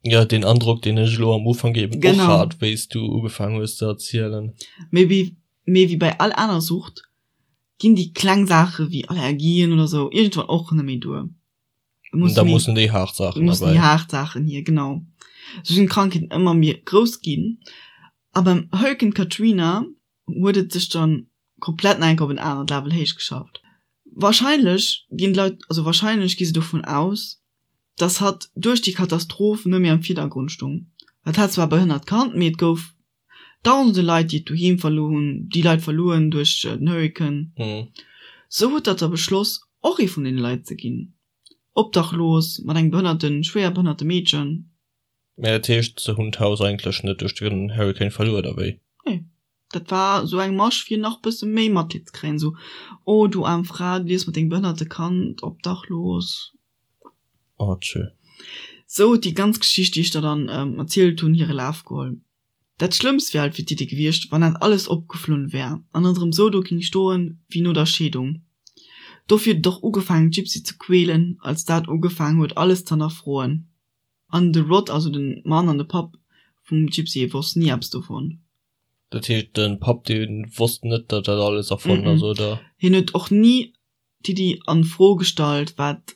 Jo, deen Androck, deen ech elo am Ufank eben och hat, wéi s du ugefaangen hues ze erzielen. Mee wéi, mee wéi bei all aner Sucht ginn déi kleng Saache wéi Allergien oder sou iergendwann och net méi duer. Da mussen déi haart Saachen erbäi. Mussen déi haart Saachen hier, genau. Sou sinn d'Krankheeten ëmmer méi grouss ginn. A beim Hurrikan Katrina huet et sech dann komplett nach eng Kéier op en anert Level héich geschafft. Wahrscheinlech ginn d'Leit, also wahrscheinlech gi se dovun aus, dass hatt duerch déi Katastroph net méi am Virdergrond stung. Et hat zwar e behënnert Kand, mee et gouf dausende Leit, déi et doheem verluer hunn, déi Leit verluer hunn duerch den Hurrikan. Sou huet hatt da beschloss, och ee vun deene Leit ze ginn, obdachlos, mat engem behënnerten, schwéier behënnerte Meedchen. Mä dat heescht, se hunn d'Haus eigentlech net duerch den Hurrikan verluer, oder wéi? Nee. Dat war esou eng Masch fir nach bësse méi Matleed ze kréien, esou, oh du aarm Fra, du liefs mat dengem behënnerte Kand obdachlos. Oh tschö. Sou huet déi ganz Geschicht, déi ech der dann erzielt hunn, hire Laf geholl. Dat Schlëmmst wär halt fir d'Diddi gewiescht, wann dat alles opgeflunn wär an et erëm sou do ging stoen wéi no der Scheedung. Dofir huet et och ugefaangen d'Gypsy ze quälen, als dat ugefaangen huet alles z'hannerfroen. An de Rod, also de Mann an de Papp vum Gypsy, wosst ni eppes dovun. Dat heescht de Papp dee wosst net, datt dat alles erfonnt ass, oder? Hien huet och ni d'Diddi a Fro gestallt, wat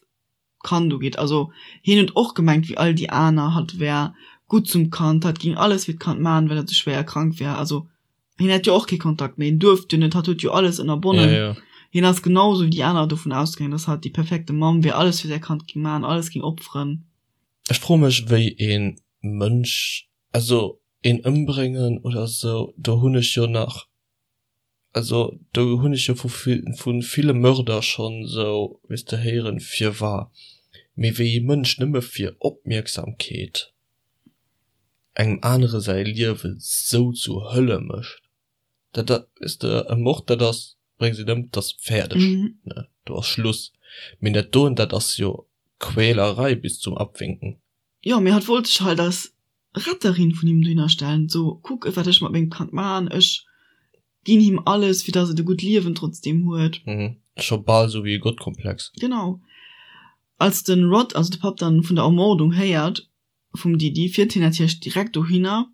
d'Kand ugeet. Also hien huet och gemengt wéi all déi aner, hatt wär gutt zum Kand, hatt géing alles fir d'Kand maachen, well hatt esou schwéier krank wär. Also hien hat jo och kee Kontakt méi, hien duerft jo net, hatt huet jo alles ënnerbonnen. Ja, ja. Hien ass genau esou wéi déi aner dovun ausgaangen, dass hatt déi perfekte Mamm wär, alles fir säi Kand géing maachen, alles géing opferen. Ech froe mech wéi ee Mënsch, also een ëmbréngen oder esou, do hunn ech jo nach Also do hunn ech jo vu vu ville Mörder schonn esou, weess de, héieren, firwar. Mee wéi ee Mënsch nëmme fir Opmierksamkeet engem anere säi Liewe sou zur Hölle mécht, dat dat, weess de, e Mord, dat ass, bréngs een ëm, dat ass fäerdeg, ne, do ass Schluss. Mee dat doen, dat ass jo Quälerei bis zum Abwinken. Jo, mee hatt wollt sech halt als Retterin vun him dohinner stellen, so, kuck wat ech mat mengem Kand maan, ech ginn him alles fir dass et e gutt Liewen trotzdem huet. Mhm, scho bal sou wéi e Gottkomplex. Genau. Als den Rod, also de Papp, dann vun der Ermordung héiert vum Didi, fiert hien natierlech direkt dohinner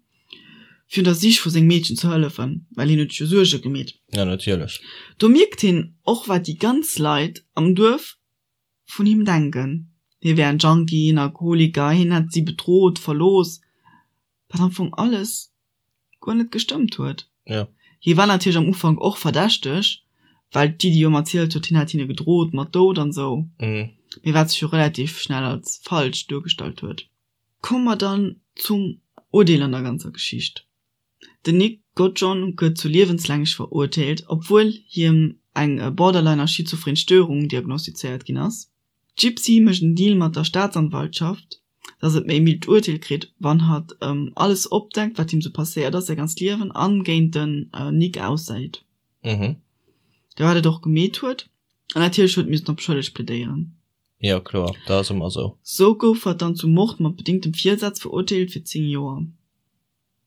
fir un der Sich vu sengem Meedchen ze hëllefen, well hien huet sech jo Suerge gemeet. Ja, natierlech. Do mierkt hien och wat déi ganz Leit am Duerf vun him denken, hie wär en Junkie, en Alkoholiker, hien hätt si bedrot, verlooss, wat am Fong alles guer net gestëmmt huet. Ja. Hie war natierlech am Ufank och verdächteg, well d'Didi jo ëmmer erzielt huet, hien hätt hinne gedrot mat Doud an esou, mee wat sech jo relativ schnell als falsch duergestallt huet. Komme mer dann zum Urdeel an der ganzer Geschicht. Den Nick Goodjohn gëtt zu liewenslänglech verurteelt, obwuel hiem eng borderliner schizophren Störung diagnostizéiert ginn ass. D'Gypsy mécht en Deal mat der Staatsanwaltschaft, dass et méi mild Urteel kritt, wann hatt alles opdeckt, wat him sou passéiert ass säi ganzt Liewen an géint den Nick aussäit. Mhm. Wat et och gemeet huet. An natierlech huet missen op schëlleg plädéieren. Jo kloer, dat ass ëmmer sou. Sou gouf hatt dann zum Mord mat bedingtem Virsaz verurteelt fir 10 Joer.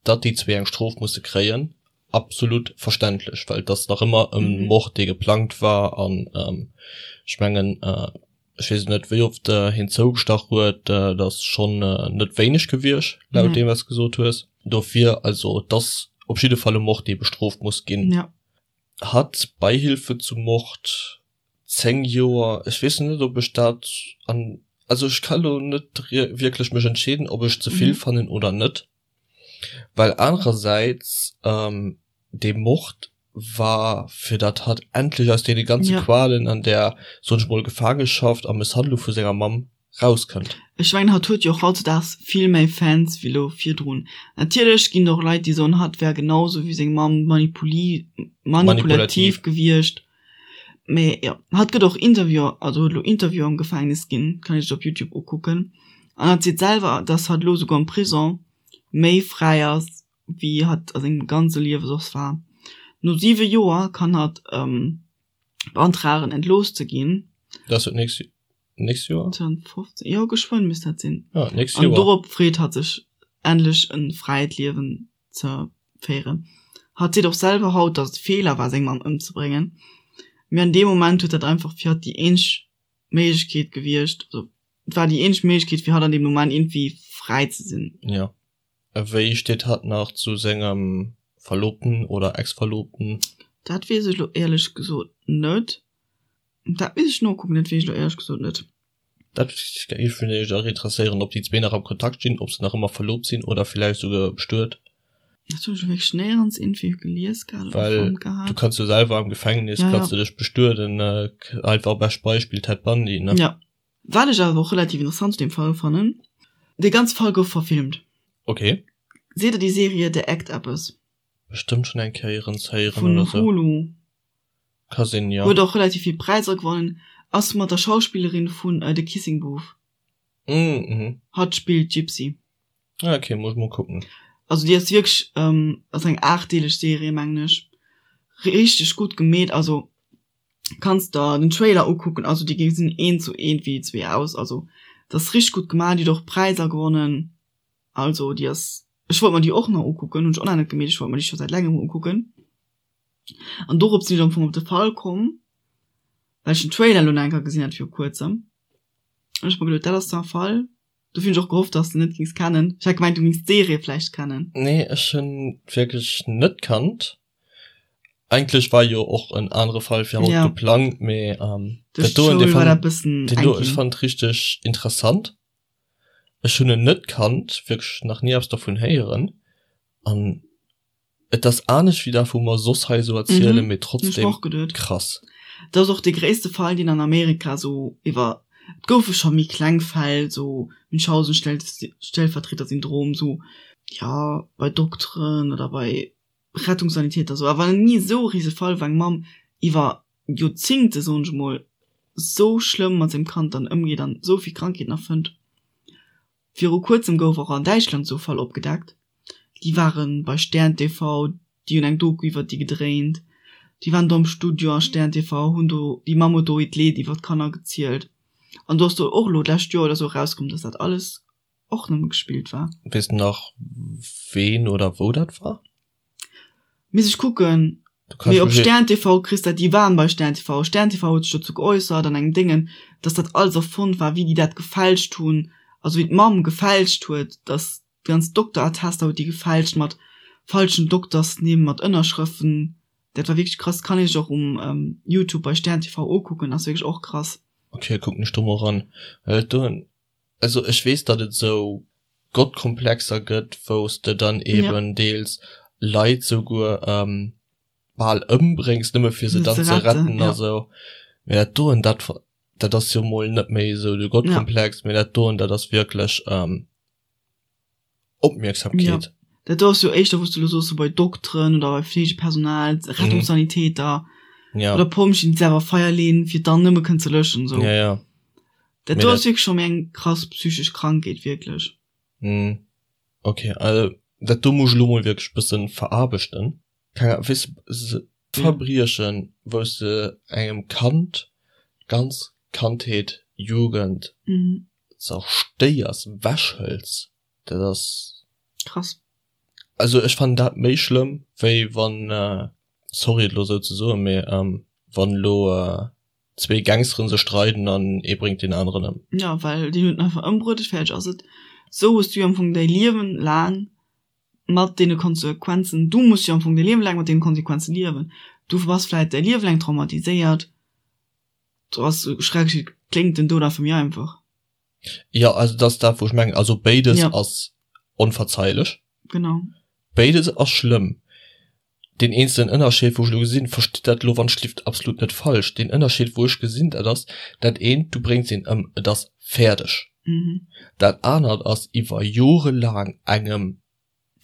Datt déi zwee eng Strof musse kréien, absolut verständlech, well et ass nach ëmmer e Mord, dee geplangt war. An ech mengen, ech weess net, wéi oft hien zougestach huet, dat ass schonn net wéineg gewiescht, laut deem, wat s de gesot hues. Dofir, also et ass op jidde Fall e Mord, dee bestrooft muss ginn. Hatt Beihilfe zum Mord, 10 Joer, ech weess net ob ech dat an, also ech ka lo net wierklech mech entscheeden ob ech ze vill fannen oder net, well anerersäits dee Mord war fir dat hatt endlech aus deene ganze Qualen an där, soen ech mol, Gefaangeschaft a Mësshandlung vu senger Mamm rauskënnt. Ech mengen hatt huet jo och hautzudags vill méi Fans wéi lo virdrun. Natierlech ginn et och Leit déi soen hatt wär genau sou wéi seng Mamm manipulativ gewiescht. Mee jo, hatt gëtt och Interviewer, also huet elo Interviewer am Gefängnis ginn, kann ee sech op Youtube ukucken. An hatt seet selwer, dass hatt elo souguer am Prison méi fräi ass wéi hatt a sengem ganze Liewe soss war. No 7 Joer kann hatt beantragen entlooss ze ginn. Dat ass jo d'nächst Nächst Joer? 2015, jo geschwënn misst dat sinn. Ja, nächst Joer. An dorop freet hatt sech endlech en fräit Liewen ze féieren. Hatt seet och selwer haut, datt et e Feeler war seng Mamm ëmzebréngen, mee an deem Moment huet dat einfach fir hatt déi eenzeg Méiglechkeet gewiescht, also et war déi eenzeg Méiglechkeet fir hatt an deem Moment iergendwéi fräi ze sinn. Jo. A wéi steet hatt nach zu sengem Verlobten oder Ex-Verlobten? Dat weess ech lo éierlech gesot net. Dat misst ech nokucken, dat weess ech lo éierlech gesot net. Dat géif mech och interesséieren, ob déi zwee nach am Kontakt stinn, ob se nach ëmmer verlobt sinn oder villäicht souguer bestuet. Dat hunn ech lo wierklech néierens iergendwéi gelies gehat oder Well fonnt gehat. du kanns jo selwer am Gefängnis, Ja, kanns ja. du dech bestueden, einfach bescht Beispill Ted Bundy, ne? Ja. Wat ech awer och relativ interessant zu deem Fall fannen, dee ganze Fall gouf verfilmt. Okay. Seet der déi Serie The Act eppes? Bestëmmt schonn eng Kéier héieren Vun oder sou. Hulu. Ka sinn, jo. Huet och relativ vill Präisser gewonnen. Ass mat der Schauspillerin vun The Kissing Booth. Mhm. Hatt spillt d'Gypsy. Ah, okay, muss ech mol kucken. Also déi ass wierklech, ass eng aachtdeeleg Serie mengen ech, richteg gutt gemeet. Also kanns der den Trailer ukucken, also déi gesinn eent zu eent wéi déi zwee aus. Also dat ass richteg gutt gemaach, déi huet och Präisser gewonnen. Also déi ass, ech wollt mer déi och nach ukucken, hunn ech och nach net gemeet, ech wollt mer déi scho säit längem ukucken. An dorop sinn ech am Fong op de Fall komm, well ech den Trailer elo nach eng Kéier gesinn hat viru kuerzem. An ech mer geduet, dat ass da e Fall, dofir hunn ech och gehofft, dass de net gings kennen. Ech hat gemengt, du gings d'Serie vläicht kennen. Nee, ech hunn wierklech net kannt. Eigentlech war jo och en anere Fall fir haut geplangt, mee dat doen, dee fannt, deen do, ech fannt richteg interessant. Ech hunn en net kannt, wierklech nach ni eppes dervun héieren an Et ass anescht wéi dat wou mer soss hei esou erzielen, mee trotzdem krass. Dat ass och dee gréisste Fall deen an Amerika sou iwwer, et goufe scho méi kleng Fäll, sou Münchhausen-Stellvertreter-Syndrom, sou jo bei Dokteren oder bei Rettungssanitäter sou, awer ni esou e rise Fall wou eng Mamm iwwer Joerzingte soen ech emol sou schlëmm mat sengem Kand dann ëmgeet an esou vill Krankheeten erfënnt. Viru kuerzem gouf och an Däitschland esou e Fall opgedeckt. Déi ware bei Stern TV, déi hunn eng Doku iwwert déi gedréint. Déi waren do am Studio a Stern TV, hunn do, déi Mamm huet do hiert Leed iwwert d'Kanner gezielt. An do ass do och elo d'lescht Joer oder esou erauskomm, dass dat alles och nëmme gespillt war. Weess de nach ween oder wou dat war? Misst ech kucken. Mee op Stern TV kriss dat, déi waren bei Stern TV. Stern TV huet sech dozou geäussert an engem Déngen, dass dat alles erfonnt war, wéi déi dat gefälscht hunn, also wéi d'Mamm gefälscht huet, dass déi ganz Dokterattester huet déi gefälscht mat falschen Doktersnimm, mat Ënnerschrëften. Dat war wierklech krass. Kann ee sech och um Youtube bei Stern TV ukucken, ass wierklech och krass. Ok, kucken ech do mol eran. Well do Also ech weess, datt et esou Gottkomplexer gëtt, wou s de dann eben deels Leit souguer bal ëmbréngs, nëmme fir se dann ze retten a sou. Mee dat doen, dat, dat ass jo mol net méi esou de Gottkomplex, mee dat doen, dat ass wierklech Opmierksamkeet. Jo, dat do ass jo éischter, wou s de elo soos, sou bei Dokteren oder bei Fleegepersonal, Rettungssanitäter oder Pompjeeën, déi selwer Feier leeën, fir dann nëmme kënnen ze löschen, sou. Ja, ja. Dat do ass wierklech scho méi eng krass psychesch Krankheet, wierklech. Mm, ok, also dat do muss ech elo mol wierklech bëssen veraarbechten. Keng Ahnung, weess de, Verbriechen, wou s de engem Kand d'ganz Kandheet, Jugend zerstéiers, wechhëls, dat ass. Krass. Also ech fannen dat méi schlëmm, wéi wann, sorry et elo esou ze soen, mee wann elo zwee Gangsteren sech streiden an ee bréngt deen aneren ëm. Jo, well deen huet en einfach ëmbruet, fäerdeg ass et. Sou hues du jo am Fong däi Liewen laang mat deene Konsequenzen, du muss jo am Fong däi Liewen laang mat deene Konsequenzen liewen. Du bass vläit däi Liewe laang traumatiséiert, do ass, sou schrecklech et kléngt, den Doud einfach méi einfach. Jo, also dat ass dat wou ech mengen, also béides ass onverzeilech. Genau. Béides ass schlëmm. Deen eenzelen Ënnerscheed, wou ech elo gesinn, verstitt dat elo wann ech lift absolut net falsch, deen Ënnerscheed wou ech gesinn, dat ass dat eent, du bréngs een ëm, et ass fäerdeg. Dat anert ass iwwer jorelaang engem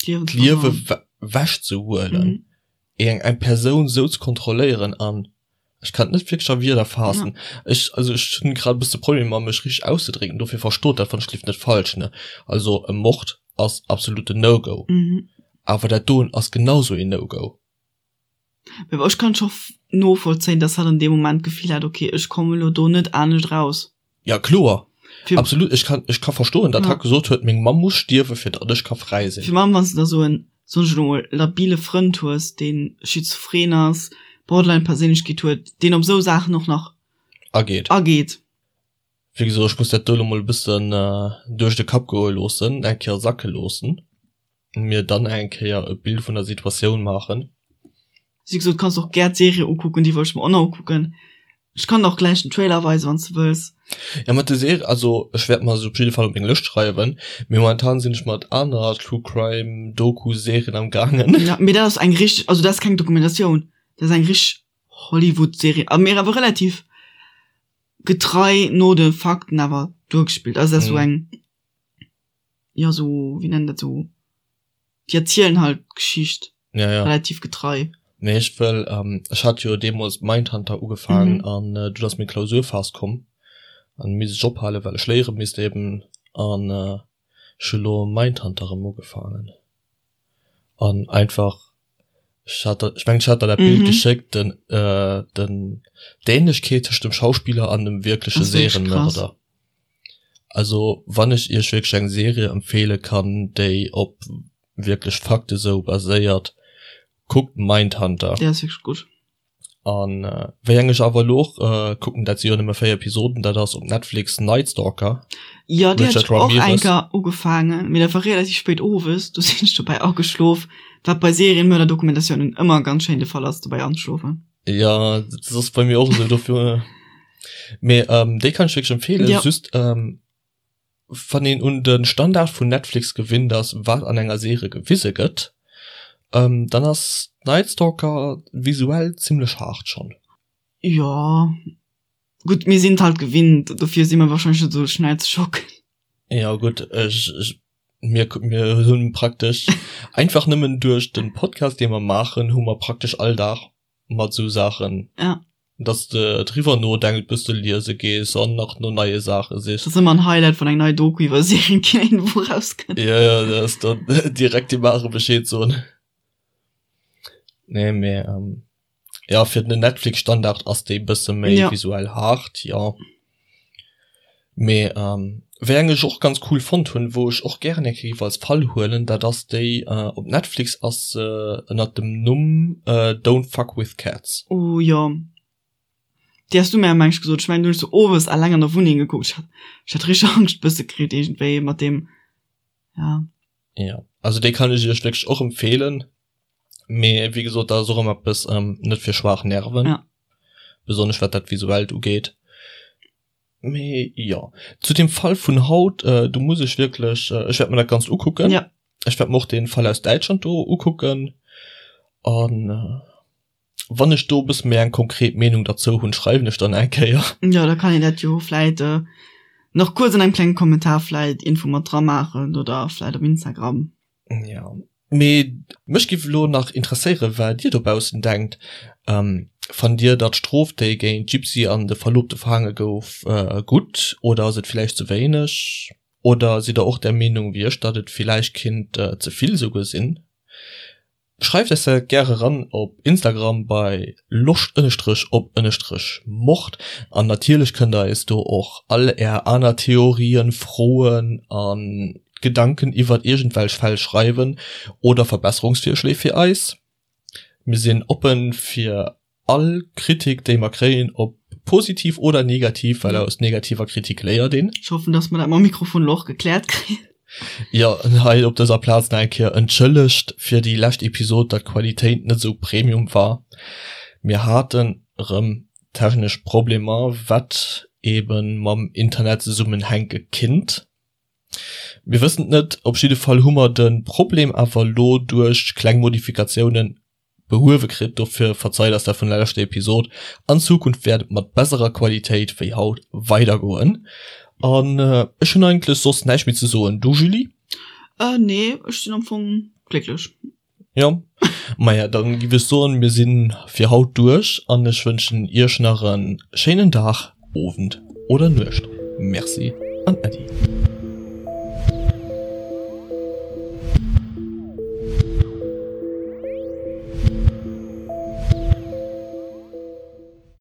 d'Liewe wechzehuelen, eng eng Persoun esou ze kontrolléieren an, ech kann et net wierklech a Wierder faassen, ech, also ech hunn grad e bësse Problemer mech richteg auszedrécken, dofir verstoot dat wann ech lift net falsch, ne. Also e Mord ass absoluten No-Go. Awer dat doen ass genau sou een No-Go. Mee ech kann scho novollzéien, dass hatt an deem Moment d'Gefill hat, ok, ech kommen elo do net anescht raus. Ja kloer, absolut. Ech kann, ech ka verstoen, datt hatt gesot huet, meng Mamm muss stierwen, fir datt ech ka fräi sinn. Fir allem wann s de da sou en, soen ech elo mol, labile Frënd hues, dee schizophren ass, Borderline-Perséinlechkeet huet, deen op esou Saachen och nach ageet. Ageet. Wéi gesot, ech muss dat do elo mol e bëssen duerch de Kapp goe loossen, eng Kéier sacke loossen, mir dann eng Kéier e Bild vun der Situatioun maachen. Wéi gesot, kanns och gär d'Serie ukucken, déi wollt ech mer och nach ukucken. Ech kann der och gläich den Trailer weisen, wann s de wëlls. Ja, mat der Serie, also ech wäert mer se op jidde Fall op meng Lëscht schreiwen, mee momentan sinn ech mat aner True Crime Doku Serien am gaangen. Ja, mee dat ass eng richteg, also dat ass keng Dokumentatioun, dat ass eng richteg Hollywood Serie, a mee awer relativ getrei no de Fakten awer duergespillt. Also dat ass sou eng, jo sou, wéi nennt dat sou, déi erzielen halt d'Geschicht ja, ja. relativ getrei. Nee, ech wëll, ähm, ech hat jo deemools Mindhunter ugefaangen mhm. an äh, du ass meng Klausurphas komm an misst ech ophalen, well ech léiere misst eben an äh, ech hu lo Mindhunter erëm ugefaangen. An einfach, ech hat der, ech mengen ech hat der dat Bild geschéckt, den, den, d'Ähnlechkeet tëscht dem Schauspiller an dem wierkleche Serienmörder. Also wann ech iech wierklech eng Serie empfehle kann, déi op wierklech Fakte sou baséiert, kuckt Mindhunter. Déi ass wierklech gutt. An wéi eng ech awer elo och kucken, dat si jo nëmme 4 Episoden, dat ass op Netflix Night Stalker. Jo, déi hat ech och eng Kéier ugefaangen, mee dat war relativ spéit owes, do sinn ech dobäi ageschlof, wat bei Serienmörder-Dokumentatiounen ëmmer ganz schéin de Fall ass, dobäi anzeschlofen. Jo, dat ass bei mir och esou, dofir. Mee déi kann ech wierklech empfeelen, just Wann een un de Standard vun Netflix gewinnt ass, wat an enger Serie gewise gëtt, dann ass Night Stalker visuell zimlech haart schonn. Jo, gutt, mir sinn et halt gewinnt, dofir si mer wahrscheinlech net esou schnell ze schocken. Jo gutt, ech, ech, mir, mir hunn praktesch einfach nëmmen duerch de Podcast dee mer maachen, hu mer praktesch all Dag mat esou Saachen. Ja. Dass de driwwer nodenkt bis de liese gees an nach no neie Saache sichs. Dat ass ëmmer en Highlight wann eng nei Doku iwwer Serienkiller iergendwou rauskënnt. Ja, ja, dat ass dann direkt dem Mare Bescheed soen. Nee, mee ähm, ja, fir den Netflix-Standard ass déi bësse méi ja. visuell haart, ja. Mee ähm, wéi eng ech och ganz cool fonnt hunn, wou ech och gären eng Kéier géif als Fall huelen, dat ass déi äh, op Netflix ass se ënnert dem Numm äh, Don't Fuck With Cats. Oh jo, déi has du mir meng ech gesot. Ech mengen du hunn ech se owes alleng an der Wunneng gekuckt. Ech hat, ech hat richteg Angscht bësse kritt iergendwéi mat deem, ja. Ja, also déi kann ech iech wierklech och empfeelen. Mee wéi gesot, dat ass och ëmmer eppes ähm, net fir schwaach Nerven. Ja. Besonnesch wat dat Visuellt ugeet. Mee jo, zu dem Fall vun haut, äh, do muss ech wierklech, äh, ech wäert mer dat Ganzt ukucken. Ja. Ech wäert mer och den Fall aus Däitschland do ukucken. An äh, wann ech do e bësse méi eng konkret Meenung derzou hunn, schreiwen ech dann eng Kéier. Jo, da kann een dat jo vläit äh, nach kuerz an engem klengen Kommentar vläit Info mat dra maachen oder vläit op Instagram. Ja. Mee mech giff elo nach interesséieren, wat dir dobaussen denkt. Fannt dir datt d'Strof déi géint d'Gypsy an de Verlobte verhaange gouf gutt oder ass et villäicht ze wéineg? Oder sidd der och der Meenung wéi ech, datt et villäicht kinnt ze vill esouguer sinn? Schreift eis dat gäre ran op Instagram bei loscht ënnestrech op ënnestrech mord an natierlech kënnt der eis do och all är aner Theorien, Froen a Gedanken iwwert iergendwelch Fäll schreiwen oder Verbesserungsvirschléi fir eis. Mir sinn oppen fir All Kritik déi mer kréien, ob positiv oder negativ, well aus negativer Kritik léiert een. Ech hoffen, dass mer dat mam Mikrofon elo och gekläert kréien. Jo, hei op dëser Plaz nach eng Kéier entschëllegt fir déi lescht Episod, datt d'Qualitéit net esou Premium war. Mir haten erëm technesch Problemer, wat eben mam Internet zesummenhänke kinnt. Mir wëssen et net. Op jidde Fall hu mer de Problem awer elo duerch kleng Modifikatiounen behuewe kritt, dofir verzeit eis dat vun der leschter Episod. An Zukunft wäert et mat besserer Qualitéit wéi haut weidergoen. An ech hunn eigentlech soss näischt méi ze soen. Du Julie? Äh nee, ech sinn am Fong glécklech. Jo, maja dann giff ech soen, mir sinn fir haut duerch an ech wënschen iech nach en schéinen Dag, Owend oder Nuecht. Merci an Äddi.